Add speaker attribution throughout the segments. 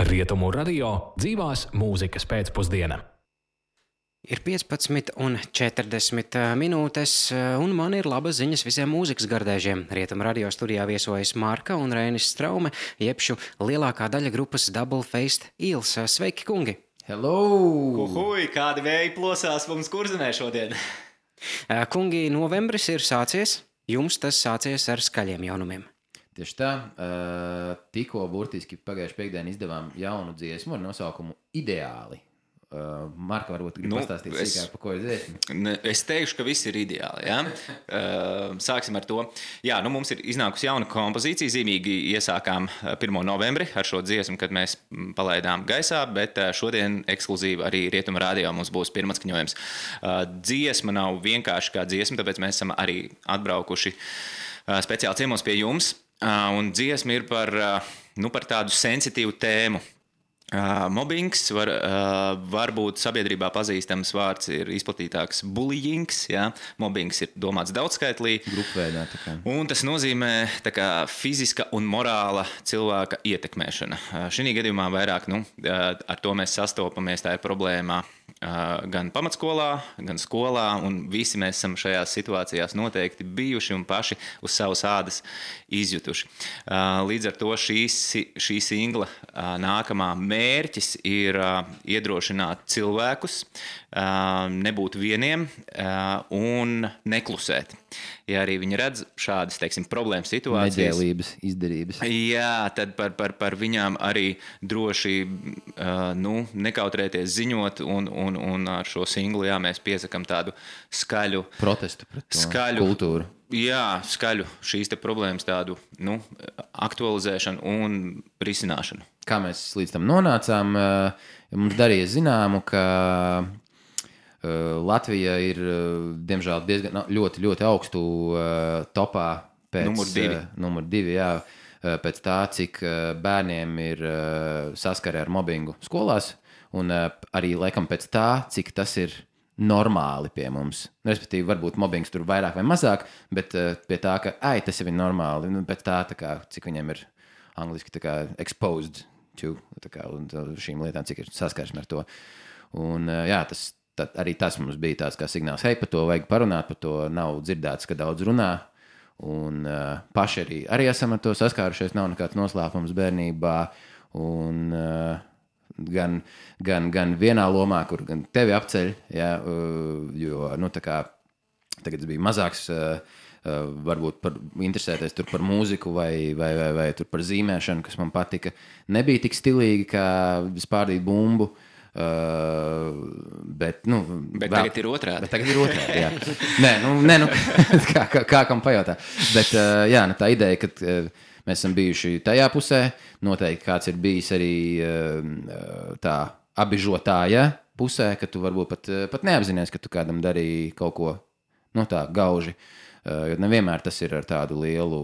Speaker 1: Rietumu radio dzīvās mūzikas pēcpusdiena.
Speaker 2: Ir 15:40 minūtes, un man ir labas ziņas visiem mūzikas gardēžiem. Rietumu radio studijā viesojas Marka un Reinis Straume, jebšu lielākā daļa grupas Double Faced Eels. Sveiki, kungi!
Speaker 3: Hello!
Speaker 4: Uhuj, kādi vēji plosās mums Kurzemē šodien?
Speaker 2: Kungi, novembris ir sācies, jums tas sācies ar skaļiem jaunumiem.
Speaker 3: Tieši tā, tikko burtiski pagājuši piekdienu izdevām jaunu dziesmu ar nosaukumu Ideāli. Marka, varbūt grib pastāstīt sīkāk, pa ko ir dziesma?
Speaker 4: Es teikšu, ka viss ir ideāli. Ja? Sāksim ar to. Jā, mums ir iznākusi jauna kompozīcija. Zīmīgi iesākām 1. novembri ar šo dziesmu, kad mēs palaidām gaisā, bet šodien ekskluzīvi arī Rietuma radio mums būs pirmatskaņojums. Dziesma nav vienkārši kā dziesma, tāpēc mēs esam arī atbraukuši speciāli ciemos pie jums. Un dziesma ir par tādu sensitīvu tēmu. Mobbings, varbūt sabiedrībā pazīstams vārds ir izplatītāks bullyings. Ja? Mobbings ir domāts daudzskaitlī.
Speaker 3: Grupveidā.
Speaker 4: Un tas nozīmē fiziska un morāla cilvēka ietekmēšana. Šī gadījumā vairāk ar to mēs sastopamies, tā ir problēma gan pamatskolā, gan skolā, un visi mēs esam šajās situācijās noteikti bijuši un paši uz savas ādas izjutuši. Līdz ar to šī singla nākamā mērķis ir iedrošināt cilvēkus, nebūt vieniem un neklusēt. Ja arī viņi redz šādas, problēmas situācijas.
Speaker 3: Neģēlības, izdarības.
Speaker 4: Jā, tad par viņām arī droši nekautrēties ziņot un ar šo singlu mēs piesakam tādu skaļu
Speaker 3: protestu pret to kultūru.
Speaker 4: Jā, skaļu šīs te problēmas tādu aktualizēšanu un risināšanu.
Speaker 3: Kā mēs līdz tam nonācām, mums darīja zināmu, ka Latvija ir, diemžēl, diezgan ļoti, ļoti augstu topā pēc numur 2, jā, pēc tā, cik bērniem ir saskare ar mobbingu skolās, un arī laikam pēc tā, cik tas ir normāli pie mums. Respektīvi, varbūt mobbings tur vairāk vai mazāk, bet pie tā, ka tas jau ir normāli, pēc tā, cik viņiem ir angliski exposed to un šīm lietām, cik ir saskarsme ar to. Un jā, arī tas mums bija tāds kā signāls, par to vajag parunāt, par to nav dzirdēts, ka daudz runā, un paši arī esam ar to saskārušies, nav nekāds noslēpums bērnībā, un gan vienā lomā, kur gan tevi apceļ, jā, jo, tagad bija mazāks, varbūt interesēties tur par mūziku vai tur par zīmēšanu, kas man patika, nebija tik stilīgi, kā spārdīt bumbu, bet
Speaker 4: tagad ir otrādi.
Speaker 3: Jā. Nē, kā kam pajautā. Bet jā, tā ideja, ka mēs esam bijuši tajā pusē, noteikti kāds ir bijis arī tā abižotāja pusē, ka tu varbūt pat neapzinies, ka tu kādam darīji kaut ko tā gauži. Jo nevienmēr tas ir ar tādu lielu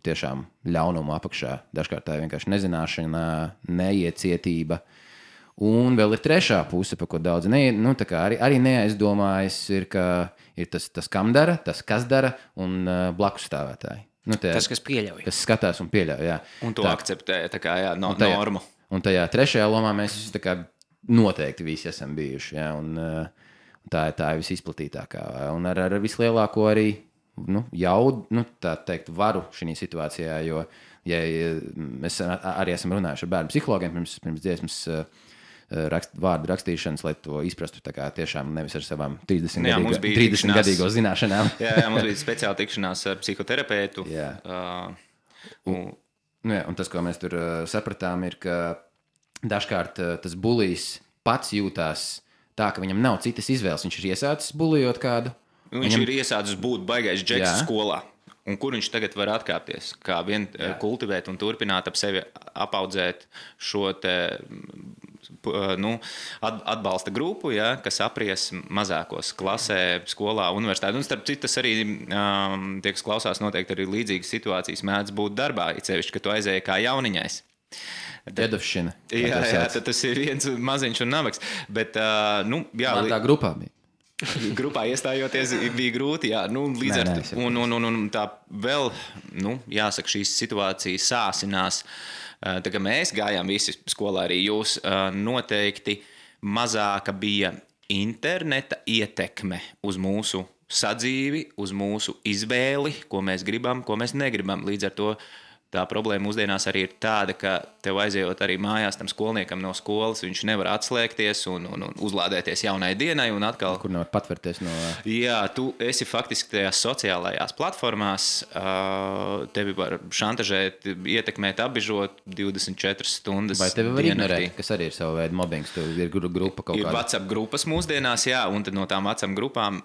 Speaker 3: tiešām ļaunumu apakšā. Dažkārt tā ir vienkārši nezināšana, neiecietība. Un vēl ir trešā puse, par ko daudz arī neaizdomājas, ir tas, kam dara, tas, kas dara, un blakus stāvētāji.
Speaker 2: Tas, kas pieļauj.
Speaker 3: Kas skatās un pieļauj, jā.
Speaker 4: Un to akceptē, normu.
Speaker 3: Un tajā trešajā lomā mēs noteikti visi esam bijuši, jā, un tā ir visizplatītākā. Un ar vislielāko arī, jaudu, tā teikt, varu šī situācijā, jo, ja mēs arī esam runājuši ar bērnu psihologiem pirms dziesmas vārdu rakstīšanas, lai to izprastu tiešām nevis ar savām 30-gadīgo zināšanām.
Speaker 4: Jā, mums bija speciāla tikšanās ar psihoterapeitu.
Speaker 3: Un tas, ko mēs tur sapratām, ir, ka dažkārt tas bulijs pats jūtās tā, ka viņam nav citas izvēles. Viņš ir iesācis bulijot kādu.
Speaker 4: Viņš ir iesācis būt baigais džeks skolā. Un kur viņš tagad var atkāpties? Kā vien kultivēt un turpināt ap sevi apaudzēt šo te atbalsta grupu, ja, kas apries mazākos klasē, skolā, universitātē. Un starp citu, tas arī tie, kas klausās, noteikti arī līdzīgas situācijas mēdz būt darbā, it sevišķi, ka tu aizēji kā jauniņais.
Speaker 3: Dedovšana.
Speaker 4: Jā, tas ir viens maziņš un nabaks. Bet,
Speaker 3: man tā grupā bija.
Speaker 4: Grupā iestājoties bija grūti, jā, līdz ar to. Un tā vēl, jāsaka, šīs situācijas sāsinās Tā kā mēs gājām visi skolā, arī jūs, noteikti mazāka bija interneta ietekme uz mūsu sadzīvi, uz mūsu izvēli, ko mēs gribam, ko mēs negribam. Līdz ar to tā problēma mūsdienās arī ir tāda, ka tev aizejot arī mājās tam skolniekam no skolas, viņš nevar atslēgties un uzlādēties jaunai dienai un atkal...
Speaker 3: Kur nevar patvērties no...
Speaker 4: Jā, tu esi faktiski tajās sociālajās platformās, tevi var šantažēt, ietekmēt, apbižot 24 stundas.
Speaker 3: Vai tevi var ignorēt, kas arī ir sava veida mobbings, tev ir grupa kaut kāda?
Speaker 4: Ir WhatsApp grupas mūsdienās, jā, un tad no tām WhatsApp grupām,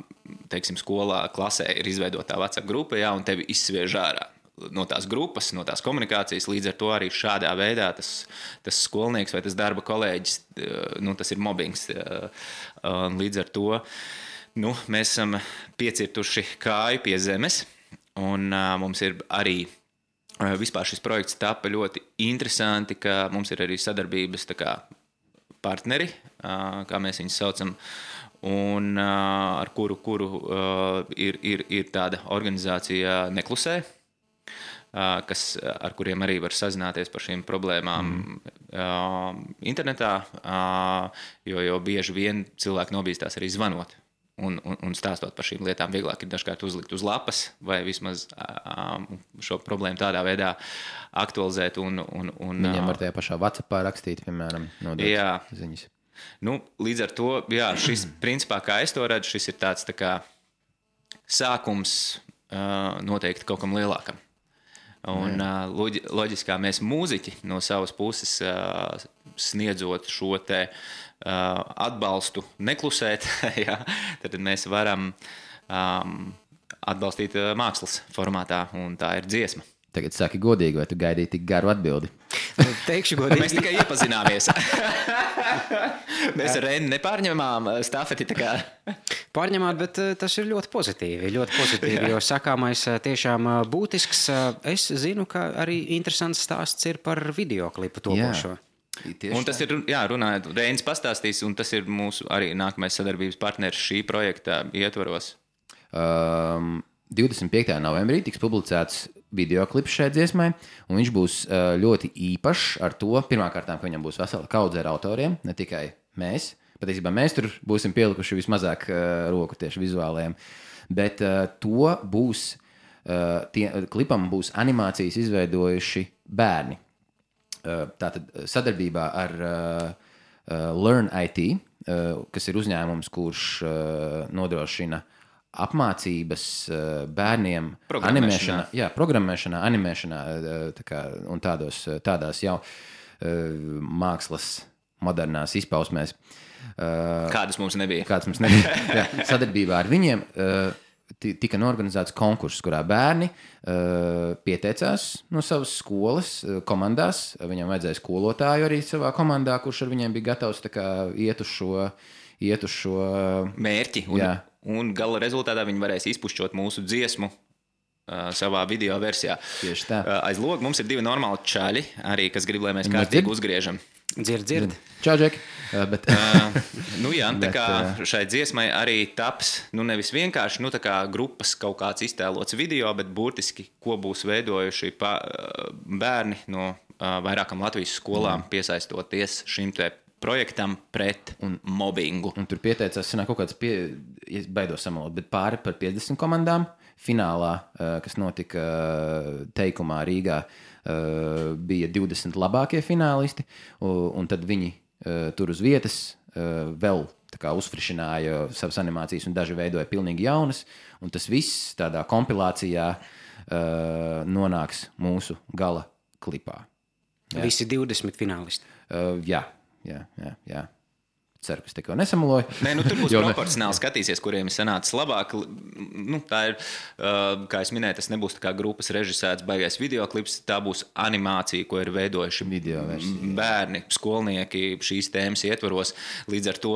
Speaker 4: teiksim, skolā, klasē ir izveidotā WhatsApp grupa, jā, un tevi izsviež ārā no tās grupas, no tās komunikācijas, līdz ar to arī šādā veidā tas skolnieks vai tas darba kolēģis, tas ir mobbings. Līdz ar to mēs esam piecirtuši kāju pie zemes, un mums ir arī vispār šis projekts tapa ļoti interesanti, ka mums ir arī sadarbības tā kā partneri, kā mēs viņus saucam, un ar kuru ir tāda organizācija Neklusē, ar kuriem arī var sazināties par šīm problēmām internetā, jo bieži vien cilvēki nobīstās arī zvanot un stāstot par šīm lietām. Vieglāk ir dažkārt uzlikt uz lapas vai vismaz šo problēmu tādā veidā aktualizēt.
Speaker 3: Viņiem var tajā pašā WhatsAppā rakstīt, piemēram, nodot ziņas.
Speaker 4: Līdz ar to, jā, šis principā, kā es to redzu, šis ir tāds tā kā sākums noteikti kaut kam lielākam. Un loģiski, kā mēs mūziķi no savas puses sniedzot šo te atbalstu neklusēt, jā, tad mēs varam atbalstīt mākslas formātā, un tā ir dziesma.
Speaker 3: Tagad saki godīgi, vai tu gaidīji tik garu atbildi?
Speaker 2: Teikšu godīgi.
Speaker 4: Mēs tikai iepazināmies. Mēs ar Reini nepārņemām stafeti.
Speaker 2: Pārņemāt, bet tas ir ļoti pozitīvi, jo sakāmais tiešām būtisks. Es zinu, ka arī interesants stāsts ir par videoklipu topošo.
Speaker 4: Un tas ir, jā, runājot, Reinis pastāstīs, un tas ir mūsu arī nākamais sadarbības partneris šī projekta ietvaros.
Speaker 3: 25. novembrī tiks publicēts videoklips šai dziesmai, un viņš būs ļoti īpašs ar to, pirmkārt, ka viņam būs vesela kaudze ar autoriem, ne tikai mēs. Patiesībā mēs tur būsim pielikuši vismazāk roku tieši vizuālajiem, bet to būs, klipam būs animācijas izveidojuši bērni. Tātad sadarbībā ar Learn IT, kas ir uzņēmums, kurš nodrošina apmācības bērniem programmēšanā, animēšanā un tādās jau mākslas modernās izpausmēs.
Speaker 4: Kādas mums nebija.
Speaker 3: Jā, sadarbībā ar viņiem tika norganizēts konkurss, kurā bērni pieteicās no savas skolas komandās. Viņam vajadzēja skolotāju arī savā komandā, kurš ar viņiem bija gatavs iet uz šo
Speaker 4: mērķi. Un gala rezultātā viņi varēs izpušķot mūsu dziesmu savā video versijā.
Speaker 3: Tieši tā.
Speaker 4: Aiz loga mums ir 2 normāli čaļi, arī, kas grib, lai mēs kārtīgi uzgriežam.
Speaker 2: Dzird.
Speaker 3: Čau, Džeki.
Speaker 4: Jā, tā kā šai dziesmai arī taps, nevis vienkārši, tā kā grupas kaut kāds iztēlots video, bet burtiski, ko būs veidojuši bērni no vairākam Latvijas skolām, piesaistoties šim te projektam pret mobbingu.
Speaker 3: Un tur pieteicās, kaut kāds, es baidos samalot, bet pāri par 50 komandām. Finālā, kas notika Teikumā Rīgā, bija 20 labākie finālisti, un tad viņi tur uz vietas vēl uzfrišināja savas animācijas un daži veidoja pilnīgi jaunas, un tas viss tādā kompilācijā nonāks mūsu gala klipā.
Speaker 2: Jā. Visi 20 finālisti.
Speaker 3: Jā. Ceru, ka es tikko nesamaloju.
Speaker 4: Tur būs proporcionāli skatīsies, kuriem ir sanācis labāk. Tā ir, kā es minēju, tas nebūs tā kā grupas režisēts baigais videoklips, tā būs animācija, ko ir veidojuši bērni, skolnieki šīs tēmas ietvaros. Līdz ar to,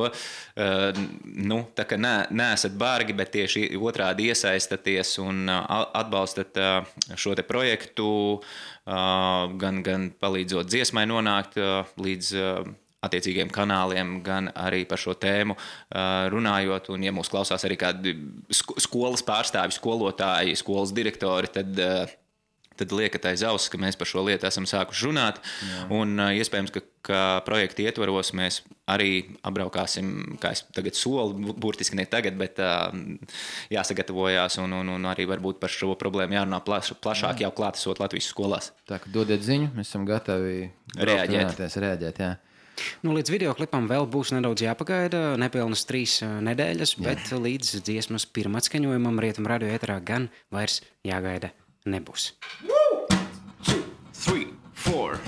Speaker 4: tā kā neesat bargi, bet tieši otrādi iesaistaties un atbalstat šo te projektu, gan palīdzot dziesmai nonākt līdz attiecīgiem kanāliem, gan arī par šo tēmu runājot. Un, ja mūs klausās arī kādi skolas pārstāvi, skolotāji, skolas direktori, tad tad liekat aiz auss, ka mēs par šo lietu esam sākuši runāt. Jā. Un iespējams, ka projekta ietvaros mēs arī apbraukāsim, kā es tagad solu, burtiski ne tagad, bet jāsagatavojās un arī varbūt par šo problēmu jārunā plašāk jau klātesot Latvijas skolās.
Speaker 3: Tā, ka dodiet ziņu, mēs esam gatavi reaģēt, jā.
Speaker 2: Nu, līdz videoklipam vēl būs nedaudz jāpagaida, nepilnas 3 nedēļas, bet līdz dziesmas pirmatskaņojumam Rietumu radio ēterā gan vairs jāgaida nebūs.
Speaker 4: 1, 2, 3, 4.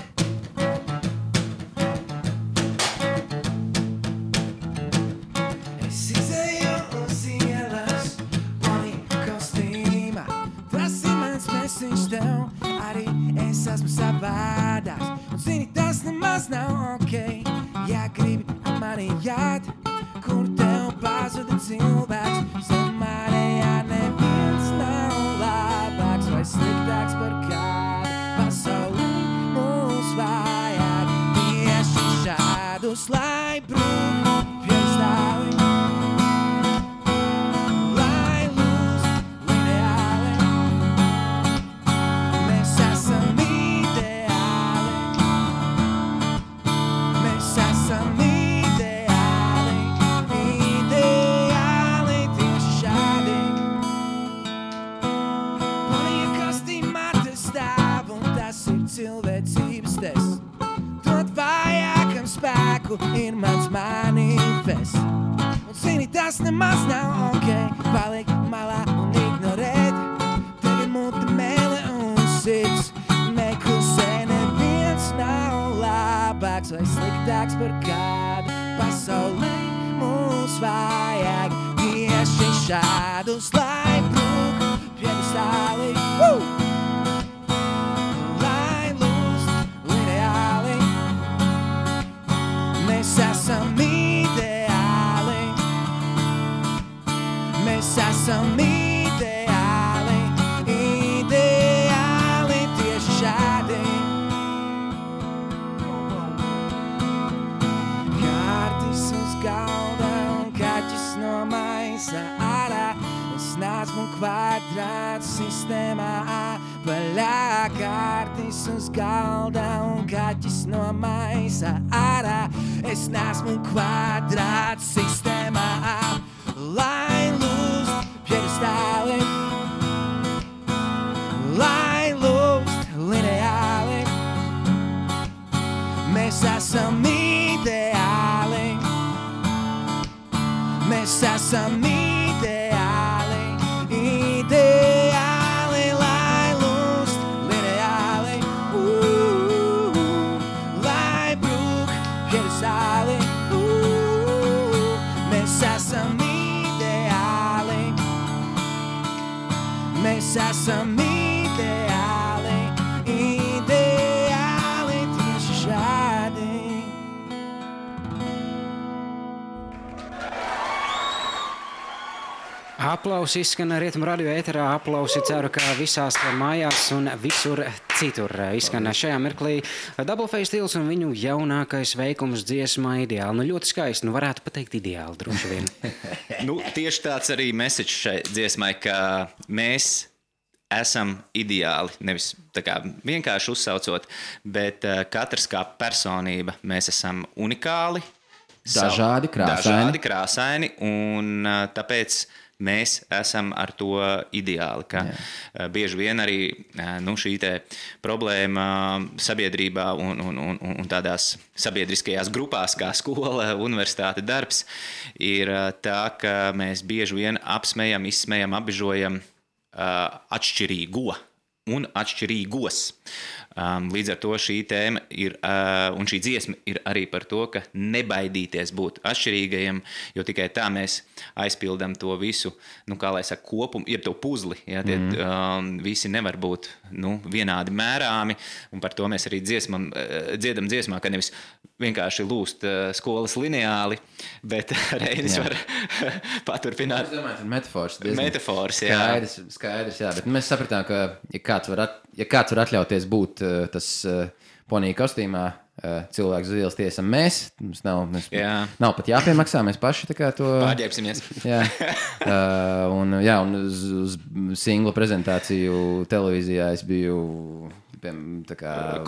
Speaker 5: Es izēju uz ielas, Ponika kostīmā. Tas ir mans mesiņš tev, arī es esmu savādāks. Un zini, tas nemaz nav ok, ja gribi ar mani jāt, kur tev pazuda cilvēks. Samārējā neviens nav labāks vai sliktāks par kādu. Pasaulī mūs vajag tieši šādus, lai brūk piestāvi. Lai lūst lineāli, mēs esam ideāli. Mēs esam ideāli, ideāli tieši šādi. Ponija kostīmā te stāv, un tas ir cilvēcības tests. Dot vajākam spēku ir mans manifests. Un zini, tas nemaz nav ok, paliek malā un ignorēt. Tev ir mute, mēle un sirds, neklusē, neviens nav labāks vai sliktāks par kādu. Pasaulē mūs vajag tieši šādus, lai brūk piedestāli. Lai lūst lineāli, mēs esam ideāli. Mēs esam ideāli, ideāli tieši šādi. Kārtis uz galda un kaķis no maisa ārā. Es neesmu kvadrāts sistēmā apaļā. Kārtis uz galda un kaķis no maisa ārā. Es neesmu kvadrāts sistēmā apaļā. Lai lūst piedestāli, lai lūst lineāli, mēs esam ideāli, mēs esam ideāli, ideāli, lai lūst lineāli, lai brūk piedestāli, mēs esam ideāli. Mēs esam ideāli, ideāli tieši šādi.
Speaker 2: Aplausi izskan Rietumu radio ēterā, aplausi ceru, ka visās mājās un visur citur izskan šajā mirklī Double Face Stils un viņu jaunākais veikums dziesmā Ideāli. Nu, ļoti skaisti, nu varētu pateikt ideāli, droši vien.
Speaker 4: Nu, tieši tāds arī message šai dziesmai, ka mēs esam ideāli, nevis tā kā vienkārši uzsaucot, bet katrs kā personība, mēs esam unikāli,
Speaker 3: Dažādi
Speaker 4: krāsaini un tāpēc mēs esam ar to ideāli, ka bieži vien arī šī te problēma sabiedrībā un tādās sabiedriskajās grupās kā skola, universitāte, darbs ir tā, ka mēs bieži vien apsmejam, izsmejam, apbežojam atšķirīgo un atšķirīgos. Līdz ar to šī tēma ir, un šī dziesma ir arī par to, ka nebaidīties būt atšķirīgajiem, jo tikai tā mēs aizpildam to visu, kā lai saka, kopumu, jeb to puzli. Ja, tie visi nevar būt vienādi mērāmi, un par to mēs arī dziedam dziesmā, ka nevis vienkārši lūst skolas lineāli, bet Reinis var paturpināt.
Speaker 3: Es domāju, metafors.
Speaker 4: Metafors, jā.
Speaker 3: Skaidrs, jā, bet mēs sapratām, ka ja kāds var atļauties būt tas ponija kostīmā, cilvēku uz ielas tiesam mēs. Mums nav pat jāpiemaksā, mēs paši tā kā to...
Speaker 4: Pārģēpsimies.
Speaker 3: Jā. Un uz singla prezentāciju televīzijā es biju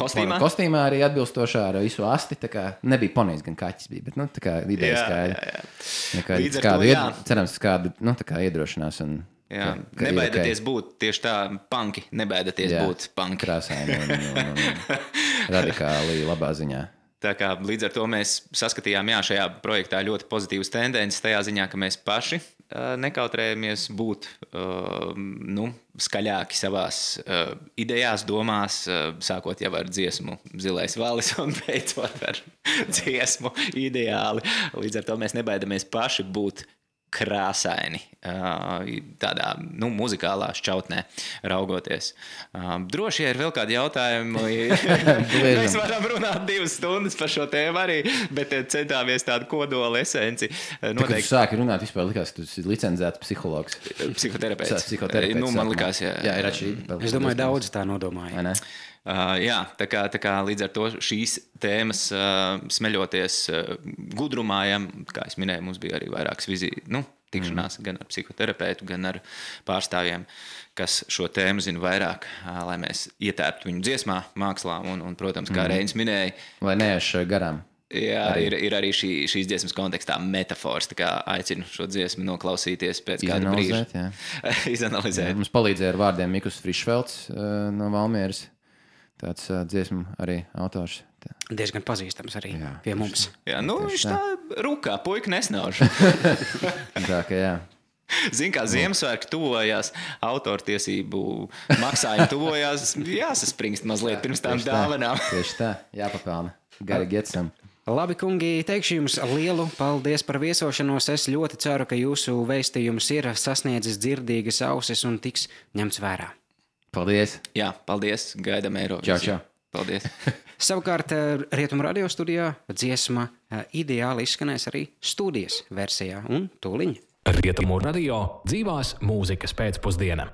Speaker 3: kostīmā arī atbilstošā ar visu asti. Tā kā nebija ponijs, gan kaķis bija, bet tā kā ideja skaidra. Cerams, kādu tā kā iedrošinās un...
Speaker 4: Jā, nebaidieties būt tieši tā punki, nebaidieties būt punki.
Speaker 3: Krāsaini un radikāli labā ziņā.
Speaker 4: Tā kā līdz ar to mēs saskatījām šajā projektā ļoti pozitīvas tendences tajā ziņā, ka mēs paši nekautrējamies būt skaļāki savās idejās, domās, sākot jau ar dziesmu Zilais valis un beidzot ar dziesmu Ideāli. Līdz ar to mēs nebaidamies paši būt krāsaini tādā muzikālā šķautnē raugoties. Droši ir vēl kādi jautājumi. Mēs varam runāt 2 stundas par šo tēmu arī, bet centāmies tādu kodola esenci.
Speaker 3: Kad tu sāki runāt, vispār likās, ka tu esi licencēts psihologs.
Speaker 4: Psihoterapeits. Man likās, jā.
Speaker 3: Jā, ir atšķirība.
Speaker 2: Es domāju, daudz tā nodomāja.
Speaker 4: Jā, tā kā līdz ar to šīs tēmas smeļoties gudrumājam, kā es minēju, mums bija arī vairākas tikšanās gan ar psihoterapeitu, gan ar pārstāvjiem, kas šo tēmu zina vairāk, lai mēs ietērptu viņu dziesmā, mākslā un protams, kā Reinis minēja.
Speaker 3: Lai neiešu garām.
Speaker 4: Jā, ir arī šīs dziesmas kontekstā metafors, tā kā aicinu šo dziesmu noklausīties pēc kāda brīža. Izanalizēt.
Speaker 3: Mums palīdzēja ar vārdiem Mikus Frišfelds no Valmieras. Tāds dziesmu arī autors.
Speaker 2: Diezgan pazīstams arī pie mums.
Speaker 4: Jā, viņš tā rukā, puika nesnauž.
Speaker 3: Tā kā jā.
Speaker 4: Zin, kā Ziemassvētki tuvojās, autortiesību maksājumi tuvojās, jāsaspringst mazliet pirms tām dāvanām.
Speaker 3: Tieši tā, jāpapelna. Gari getsam.
Speaker 2: Labi, kungi, teikšu jums lielu paldies par viesošanos. Es ļoti ceru, ka jūsu vēstījums ir sasniedzis dzirdīgas ausis un tiks ņemts vērā.
Speaker 3: Paldies.
Speaker 4: Jā, paldies. Gaidām Eirovīziju.
Speaker 3: Čau.
Speaker 4: Paldies.
Speaker 2: Savukārt Rietumu radio studijā dziesma Ideāli izskanēs arī studijas versijā un tūliņ.
Speaker 1: Rietumu radio dzīvās mūzikas pēcpusdiena.